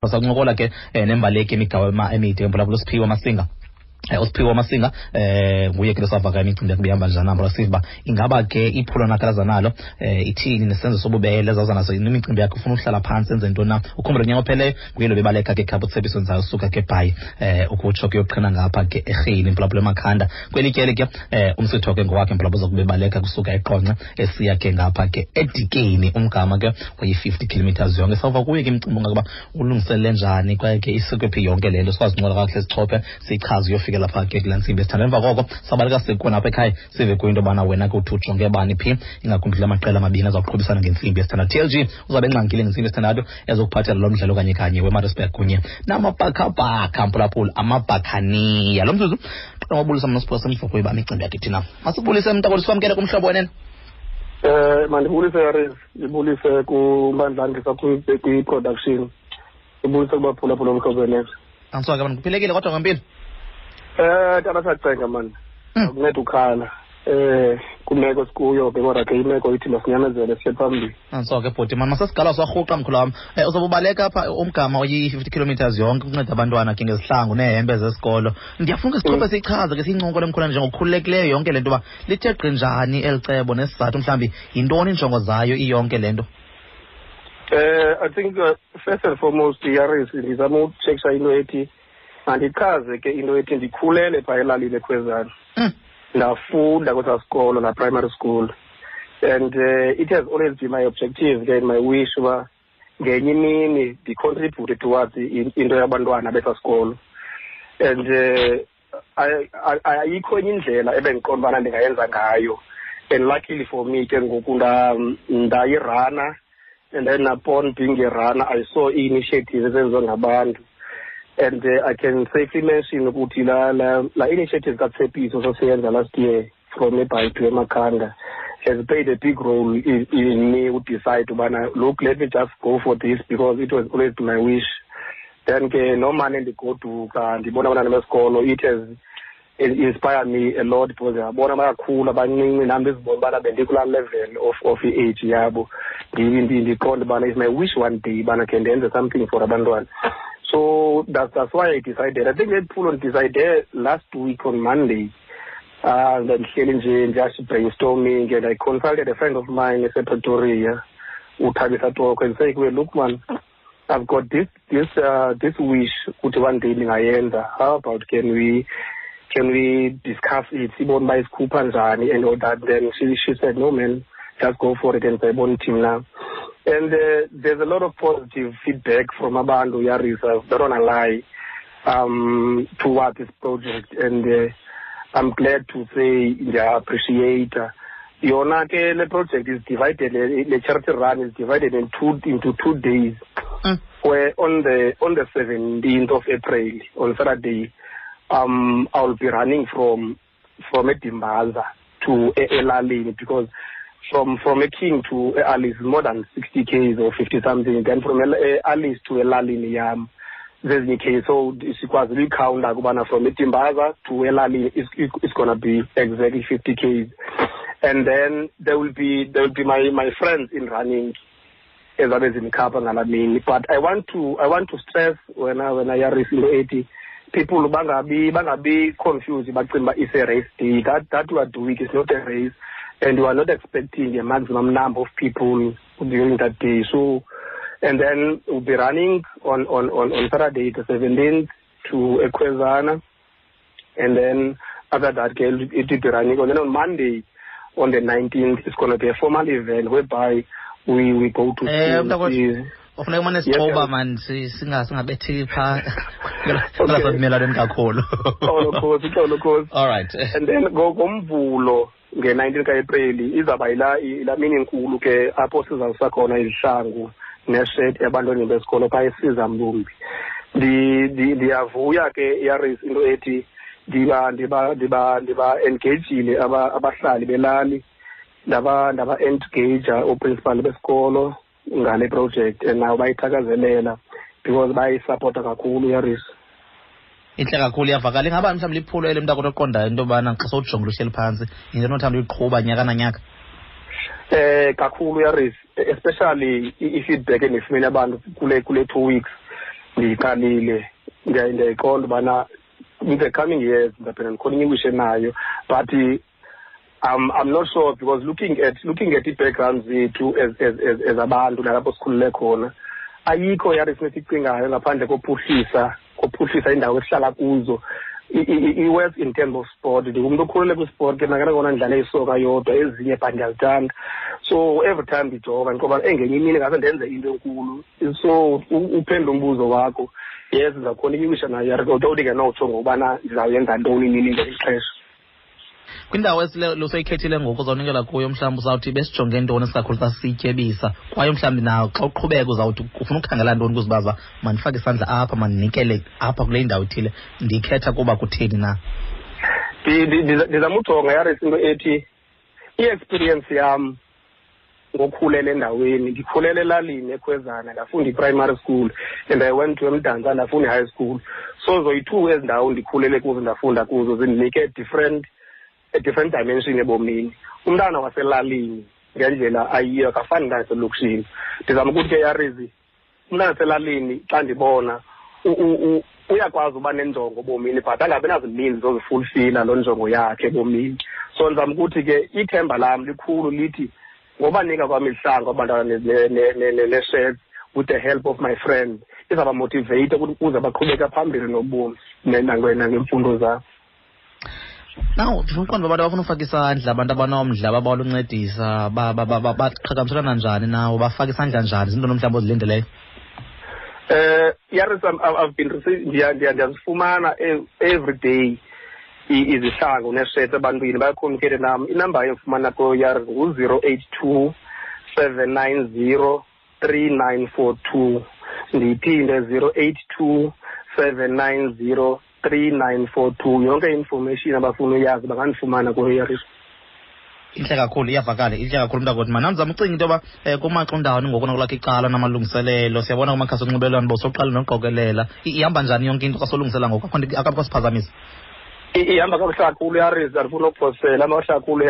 Sakuncokola ke nembaleki yemigawo emide emphulaphula uSiphiwe Masinga. USiphiwe Masinga nguye ke losavaka imicimbi yakhe ibihamba njani apho, siva uba ingaba ke iphulo nakalaza nalo ithini nesenzo sobubele zawuza naso imicimbi yakhe, ufuna uhlala phantsi enze ntoni na. Ukhumbule unyaka opheleyo nguye lo bebaleka ke khapha uTsebiso Nzayo usuka ke Bhayi ukutsho kuyoqhina ngapha ke eRhini mphulaphula eMakhanda. Kweli tyeli ke umsitho ke ngowakhe mphulaphula uza kubebaleka kusuka eQonce esiya ke ngapha ke eDikeni, umgama ke oyi-50 kilometers yonke. Sawuva kuye ke imicimbi ungakuba ulungiselele njani kwaye ke isuke phi yonke le nto, sikwazi uncola kakuhle sichophe siyichaze uyofikela phaa ke kulaa ntsimbi esithanda. Emva koko sabaleka sikhona apha ekhaya sive kuyo into yobana wena ke uthi ujonge bani phi, ingakumbi kula maqela amabini azawuqhubisana ngentsimbi yesithandathu. TLG uzawube engxangile ngentsimbi yesithandathu ezokuphathela lo mdlalo kanye kanye weMaritzburg kunye namabhakabhaka mphulaphula amabhakhaniya. Lo mzuzu qala wabulisa mna siphosa emva uba imicimbi yakhe thina. Masibulise mntakwethu, sikwamkele kumhlobo wenene. Mandibulise Yaris, ndibulise kuMandlandisa kwi-production, ndibulise kubaphulaphula umhlobo wenene. Andisoke mani, kuphilekile kodwa ngempilo? Tata sacenga mani, akunceda ukhala. Kwimeko sikuyo ke, kodwa ke imeko ithi masinyamezele siye phambili. Andisoke bhuti mani, masesigala sarhuqa mkhulu wam. Uzobe ubaleka apha umgama oyi-50 kilometers yonke ukunceda abantwana ke ngezihlangu neehempe zesikolo. Ndiyafuna ke sichophe siyichaze ke siyincokole mkhulu njengokukhululekileyo yonke le nto uba lithe gqi njani eli cebo nesizathu, mhlawumbi yintoni injongo zayo iyonke le nto? I think first and foremost, Yaris, ndizama utshekisha into ethi mandichaze ke into ethi ndikhulele phaa elalini eKhwezana. Ndafunda kwesaa sikolo, la primary school, and it has always been my objective and my wish uba ngenye imini ndicontribute towards into yabantwana besaa sikolo. And ayikho enye indlela ebendiqonda ubana ndingayenza ngayo. And luckily for me ke ngoku ndayirana, and then upon being a runner I saw i-initiative ezenziwa ngabantu. And I can safely mention ukuthi la initiative kaTsepiso sasiyenza last year from eBhayi to eMakhanda has played a big role in me who decide ubana look, let me just go for this because it was always my wish. Then ke nomane ndigoduka ndibona abantwana besikolo, it has inspired me a lot because ndiyabona bayakhula bancinci, nam ndizibona ubana bendikulaa level of i-age yabo. Ndiqonde ubana it's my wish one day ubana khe ndenze something for abantwana. So that's why I decided. I think that phulo decided last week on Monday. Ndihleli nje just brainstorming, and I consulted a friend of mine esePretoria, uThabisa Toko, and say, well, look man, I've got this wish ukuthi one day ndingayenza. How about can we discuss it? Sibone uba isikhupha njani and all that. Then she said, no man, just go for it and sayibona team now. And there's a lot of positive feedback from abantu, Yaris, I don't wanna lie, towards this project. And I'm glad to say I appreciate. Yona ke le project is divided, le charity run is divided into 2 days. Where on the 17th of April, on Saturday, I'll be running from Edimbaza to Elalini, because from King to Alice is more than 60 Ks or 50 something. Then from Alice to Elalini, there's K. So sikwazi uyikhawunta ukubana from Edimbaza to Elalini it's going to be exactly 50 Ks. And then there will be my friends in running ezabe zinikhapha ngalaa mini. But I want to stress when I Yaris into 80, people bangabi confused bacinga uba it's a race day. That we are doing is not a race, and we are not expecting a maximum number of people during that day. So, and then we'll be running on Saturday the 17th to Ekwezana, and then after that it will be running. And then on Monday, on the 19th, it's going to be a formal event whereby we go to school. Ufuneka umane sixoba man, singabethi phaa ngasavumelwaneni kakhulu. Xolo, Nkosi. All right. And then ngoMvulo nge-19 ka-Aprili izawuba yilaa mini inkulu ke apho sizawusa khona izihlangu neshet ebantwaneni besikolo phaa eSiza Mlumbi. Ndiyavuya ke Yaris into ethi ndiba engagile abahlali belali, ndaba engage ooprincipal besikolo ngale project, and nabo bayithakazelela because bayisupporta kakhulu Yaris. Intle kakhulu, iyavakala. Ingaba mhlawumbi liphulo eli mntakwethu oqondayo into yobana xa sowujongile uhleli phantsi yinto onothanda uyiqhuba nyaka nanyaka? Kakhulu Yaris, especially i-feedback endiyifumene abantu kule 2 weeks. Ndiyiqalile, ndiyayiqonda ubana in the coming years ndizawuphinda ndikhona enayo, but I'm not sure, because looking at i-background zethu as abantu nalapho sikhulele khona, ayikho yari sinesicingayo ngaphandle kophuhlisa indawo esihlala kuzo. I-work in terms of sport, ndingumntu okhulele kwisport ke nakona ndidlale isoka yodwa, ezinye but ndiyazithanda. So every time ndijonga ndikoba engenye imini ngase ndenze into enkulu. So uphendula umbuzo wakho, yes, ndizawukhona iwisha nayo yari, kodwa ndingenotsho ngokubana ndizawuyenza ntoni nini ngeli xesha. Kwindawo luseyikhethile ngoku uzawunikela kuyo, mhlawumbi uzawuthi besijonge ntoni isikakhulu xa sityebisa, kwaye mhlawumbi nawo xa uqhubeka uzawuthi ufuna ukukhangela ntoni kuzibaza, mandifake isandla apha, mandinikele apha kule ndawo ithile ndiyikhetha kuba kutheni na? Ndizama ujonga yaris into ethi i-experience yam ngokhulela endaweni. Ndikhulele elalini eKhwezana, ndafunda i-primary school and I went to eMdantsane, ndafunda i-high school. So zoyi-two ezi ndawo ndikhulele kuzo, ndafunda kuzo, zindinike a different dimension ebomini. Umntana waselalini ngendlela ayiyo akafani nomntana waselokishini. Ndizama ukuthi ke yarizi, umntana waselalini xa ndibona uyakwazi uba nenjongo ebomini, but angabi nazininzi zozifulfila loo njongo yakhe ebomini. So ndizama ukuthi ke ithemba lam likhulu lithi ngobanika kwam izihlangu abantwana nee-shirts with the help of my friend, izawubamotiveyitha ukuthi ukuze baqhubeke phambili nobomi nangemfundo zabo. Now ndifuna uqonda uba abantu abafuna ufaka isandla, abantu abanomdla babawela uncedisa, baqhagamshelana njani nawo, bafaka isandla njani? Zintoni mhlawumbi ozilindeleyo? Yaris, I've been receiving, ndiyazifumana every day izihlangu neesheti ebantwini, bayacommunicate nam. Inamba yofumana kuyo yaris ngu-082 790 3942. Ndiyiphinde, 082 790 3942. Yonke information abafuna uyazi bangandifumana kuyo yaris. Intle kakhulu, iyavakala, intle kakhulu mntakwethu. Manam ndizama ucinga into yoba kumaxa undawoni ngoku nakulakho icala namalungiselelo, siyabona kumakhasi onxibelelwano bowusoqala noqokelela. Ihamba njani yonke into xa solungisela ngoku? Akho nto akapho siphazamisa? Ihamba kakuhle kakhulu yaris, andifuna ukuphosela kakuhle kakhulu.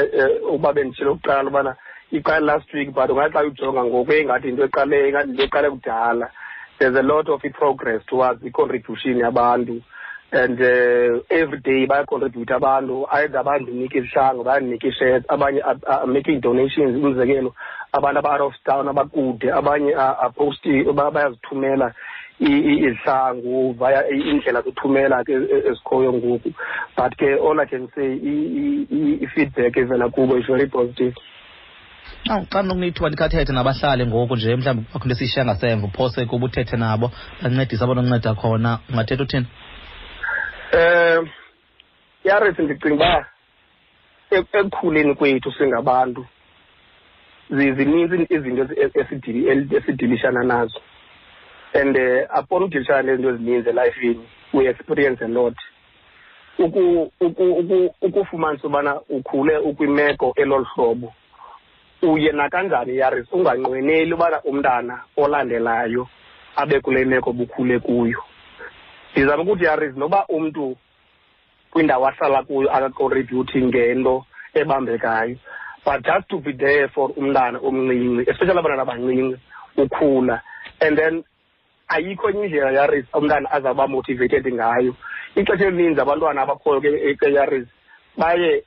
Uba benditshilo kuqala ubana iqale last week, but ungathi xa ujonga ngoku ingathi yinto eqale kudala. There's a lot of i-progress towards i-contribution yabantu and every day bayacontribute abantu, either bandinika izihlangu, bayandinika ii-shirts, abanye are making donations. Umzekelo, abantu aba-out of town, abakude, abanye are posting, bayazithumela izihlangu via iindlela zothumela ke ezikhoyo ngoku. But ke all I can say, i-feedback evela kubo is very positive. Awu, xa ndinokunithiwa ndikhathethe nabahlali ngoku nje, mhlawumbi akho nto esiyishiya ngasemva, uphose kuba uthethe nabo, bancedise abanonceda khona, ungathetha uthini? Yaris, ndicinga uba ekukhuleni kwethu singabantu zininzi izinto esidilishana nazo, and upon udilishana nezinto ezininzi elifini, we experience a lot. Ukufumanisa ubana ukhule ukwimeko elolu hlobo, uye nakanjani yaris unganqweneli ubana umntana olandelayo abe kule meko bukhule kuyo. Ndizama ukuthi yaris, noba umntu kwindawo ahlala kuyo akacontributi ngento ebambekayo, but just to be there for umntana omncinci, especially abantwana abancinci ukhula, and then ayikho enye indlela yaris umntana azawuba motivated ngayo. Ixesha elininzi abantwana abakhoyo ke yaris baye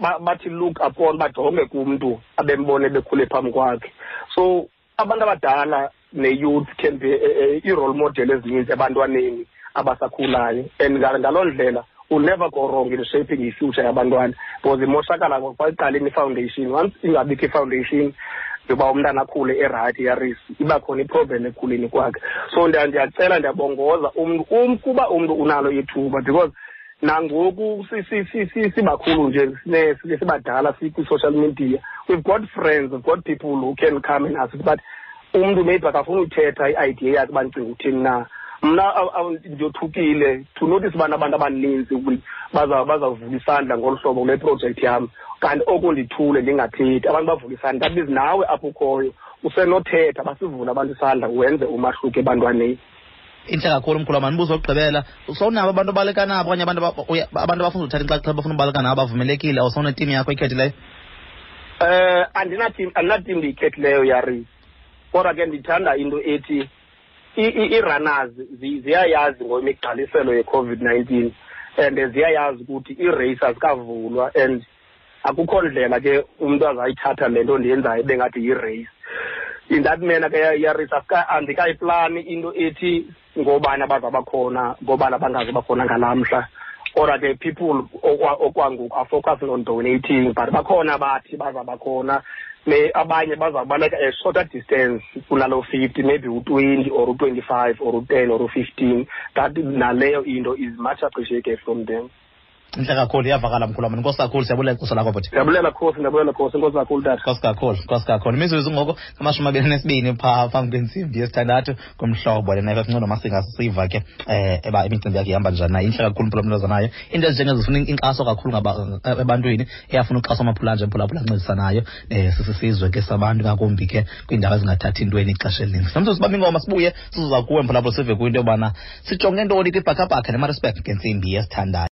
bathi look upon, bajonge kumntu abembone bekhule phambi kwakhe. So abantu abadala ne-youth can be i-role model ezininzi ebantwaneni abasakhulayo, and ngaloo ndlela will never go wrong in shaping i-future yabantwana, because imoshakala kwakuqaleni i-foundation. Once ingabikho i-foundation yoba umntana akhule erayithi yaris, iba khona iproblem ekukhuleni kwakhe. So ndiyacela, ndiyabongoza umntu, kuba umntu unalo ithuba, because nangoku sibakhulu nje, sibadala, sikwi-social media, we've got friends, we've got people who can come and assist, but umntu maybe akafuni uthetha i-idea yakhe uba ndicinga uthini na. Mna ndiyothukile to notice ubana abantu abaninzi bazawuvula isandla ngolu hlobo kule project yam, kanti oku ndithule ndingathethi, abantu bavula isandla. That means nawe apho ukhoyo usenothetha, basivule abantu isandla, wenze umahluko ebantwaneni. Intle kakhulu mkhulu. Mandibuzo okugqibela, sowunabo abantu obaleka nabo okanye abantu abafuna uthatha inxaxheba, bafuna ubaleka nabo, bavumelekile? Awusawunetim yakho ikhethileyo? Andinatim, andinatim ndiyikhethileyo yaris, kodwa ke ndithanda into ethi I-runners ziyayazi ngoimigqaliselo ye-COVID-19 and ziyayazi ukuthi ii-race azikavulwa and akukho ndlela ke umntu azayithatha le nto ndiyenzayo bengathi yi-race. In that manner ke yarace andikayiplani into ethi ngobani abazaba khona, ngobani abangazoba khona ngalaa mhla. Kodwa ke people okwangoku are focusing on donating, but bakhona abathi bazaba khona. Abanye bazawubaleka a shorter distance kunaloo 50, maybe u-20 or u-25 or u-10 or u-15. That naleyo into is much appreciated from them. Intle kakhulu, iyavakala mkhulu wam. Enkosi kakhulu, siyabulela ixesha lakho bhuti. Ndiyabulela Khosi, ndiyabulela Khosi, enkosi kakhulu tata. Enkosi kakhulu, enkosi kakhulu. Imizuzu ngoku 22 phaa phambi kwentsimbi yesithandathu kumhlobo lena FM Ncono Masinga, sisiva ke eba imicimbi yakhe ihamba njani na. Intle kakhulu mphulaphula nayo. Into ezinjengezo zifuna inkxaso kakhulu ebantwini, eyafuna uxhaso amaphula nje mphulaphula ancedisanayo sisisizwe ke sabantu, ngakumbi ke kwiindawo ezingathathi intweni ixesha elininzi. Samso sibambe ingoma sibuye sizoza kuwe mphulaphula sive kwinto yobana sijonge ntoni kwibhakabhaka neMaritzburg ngentsimbi yesithandathu.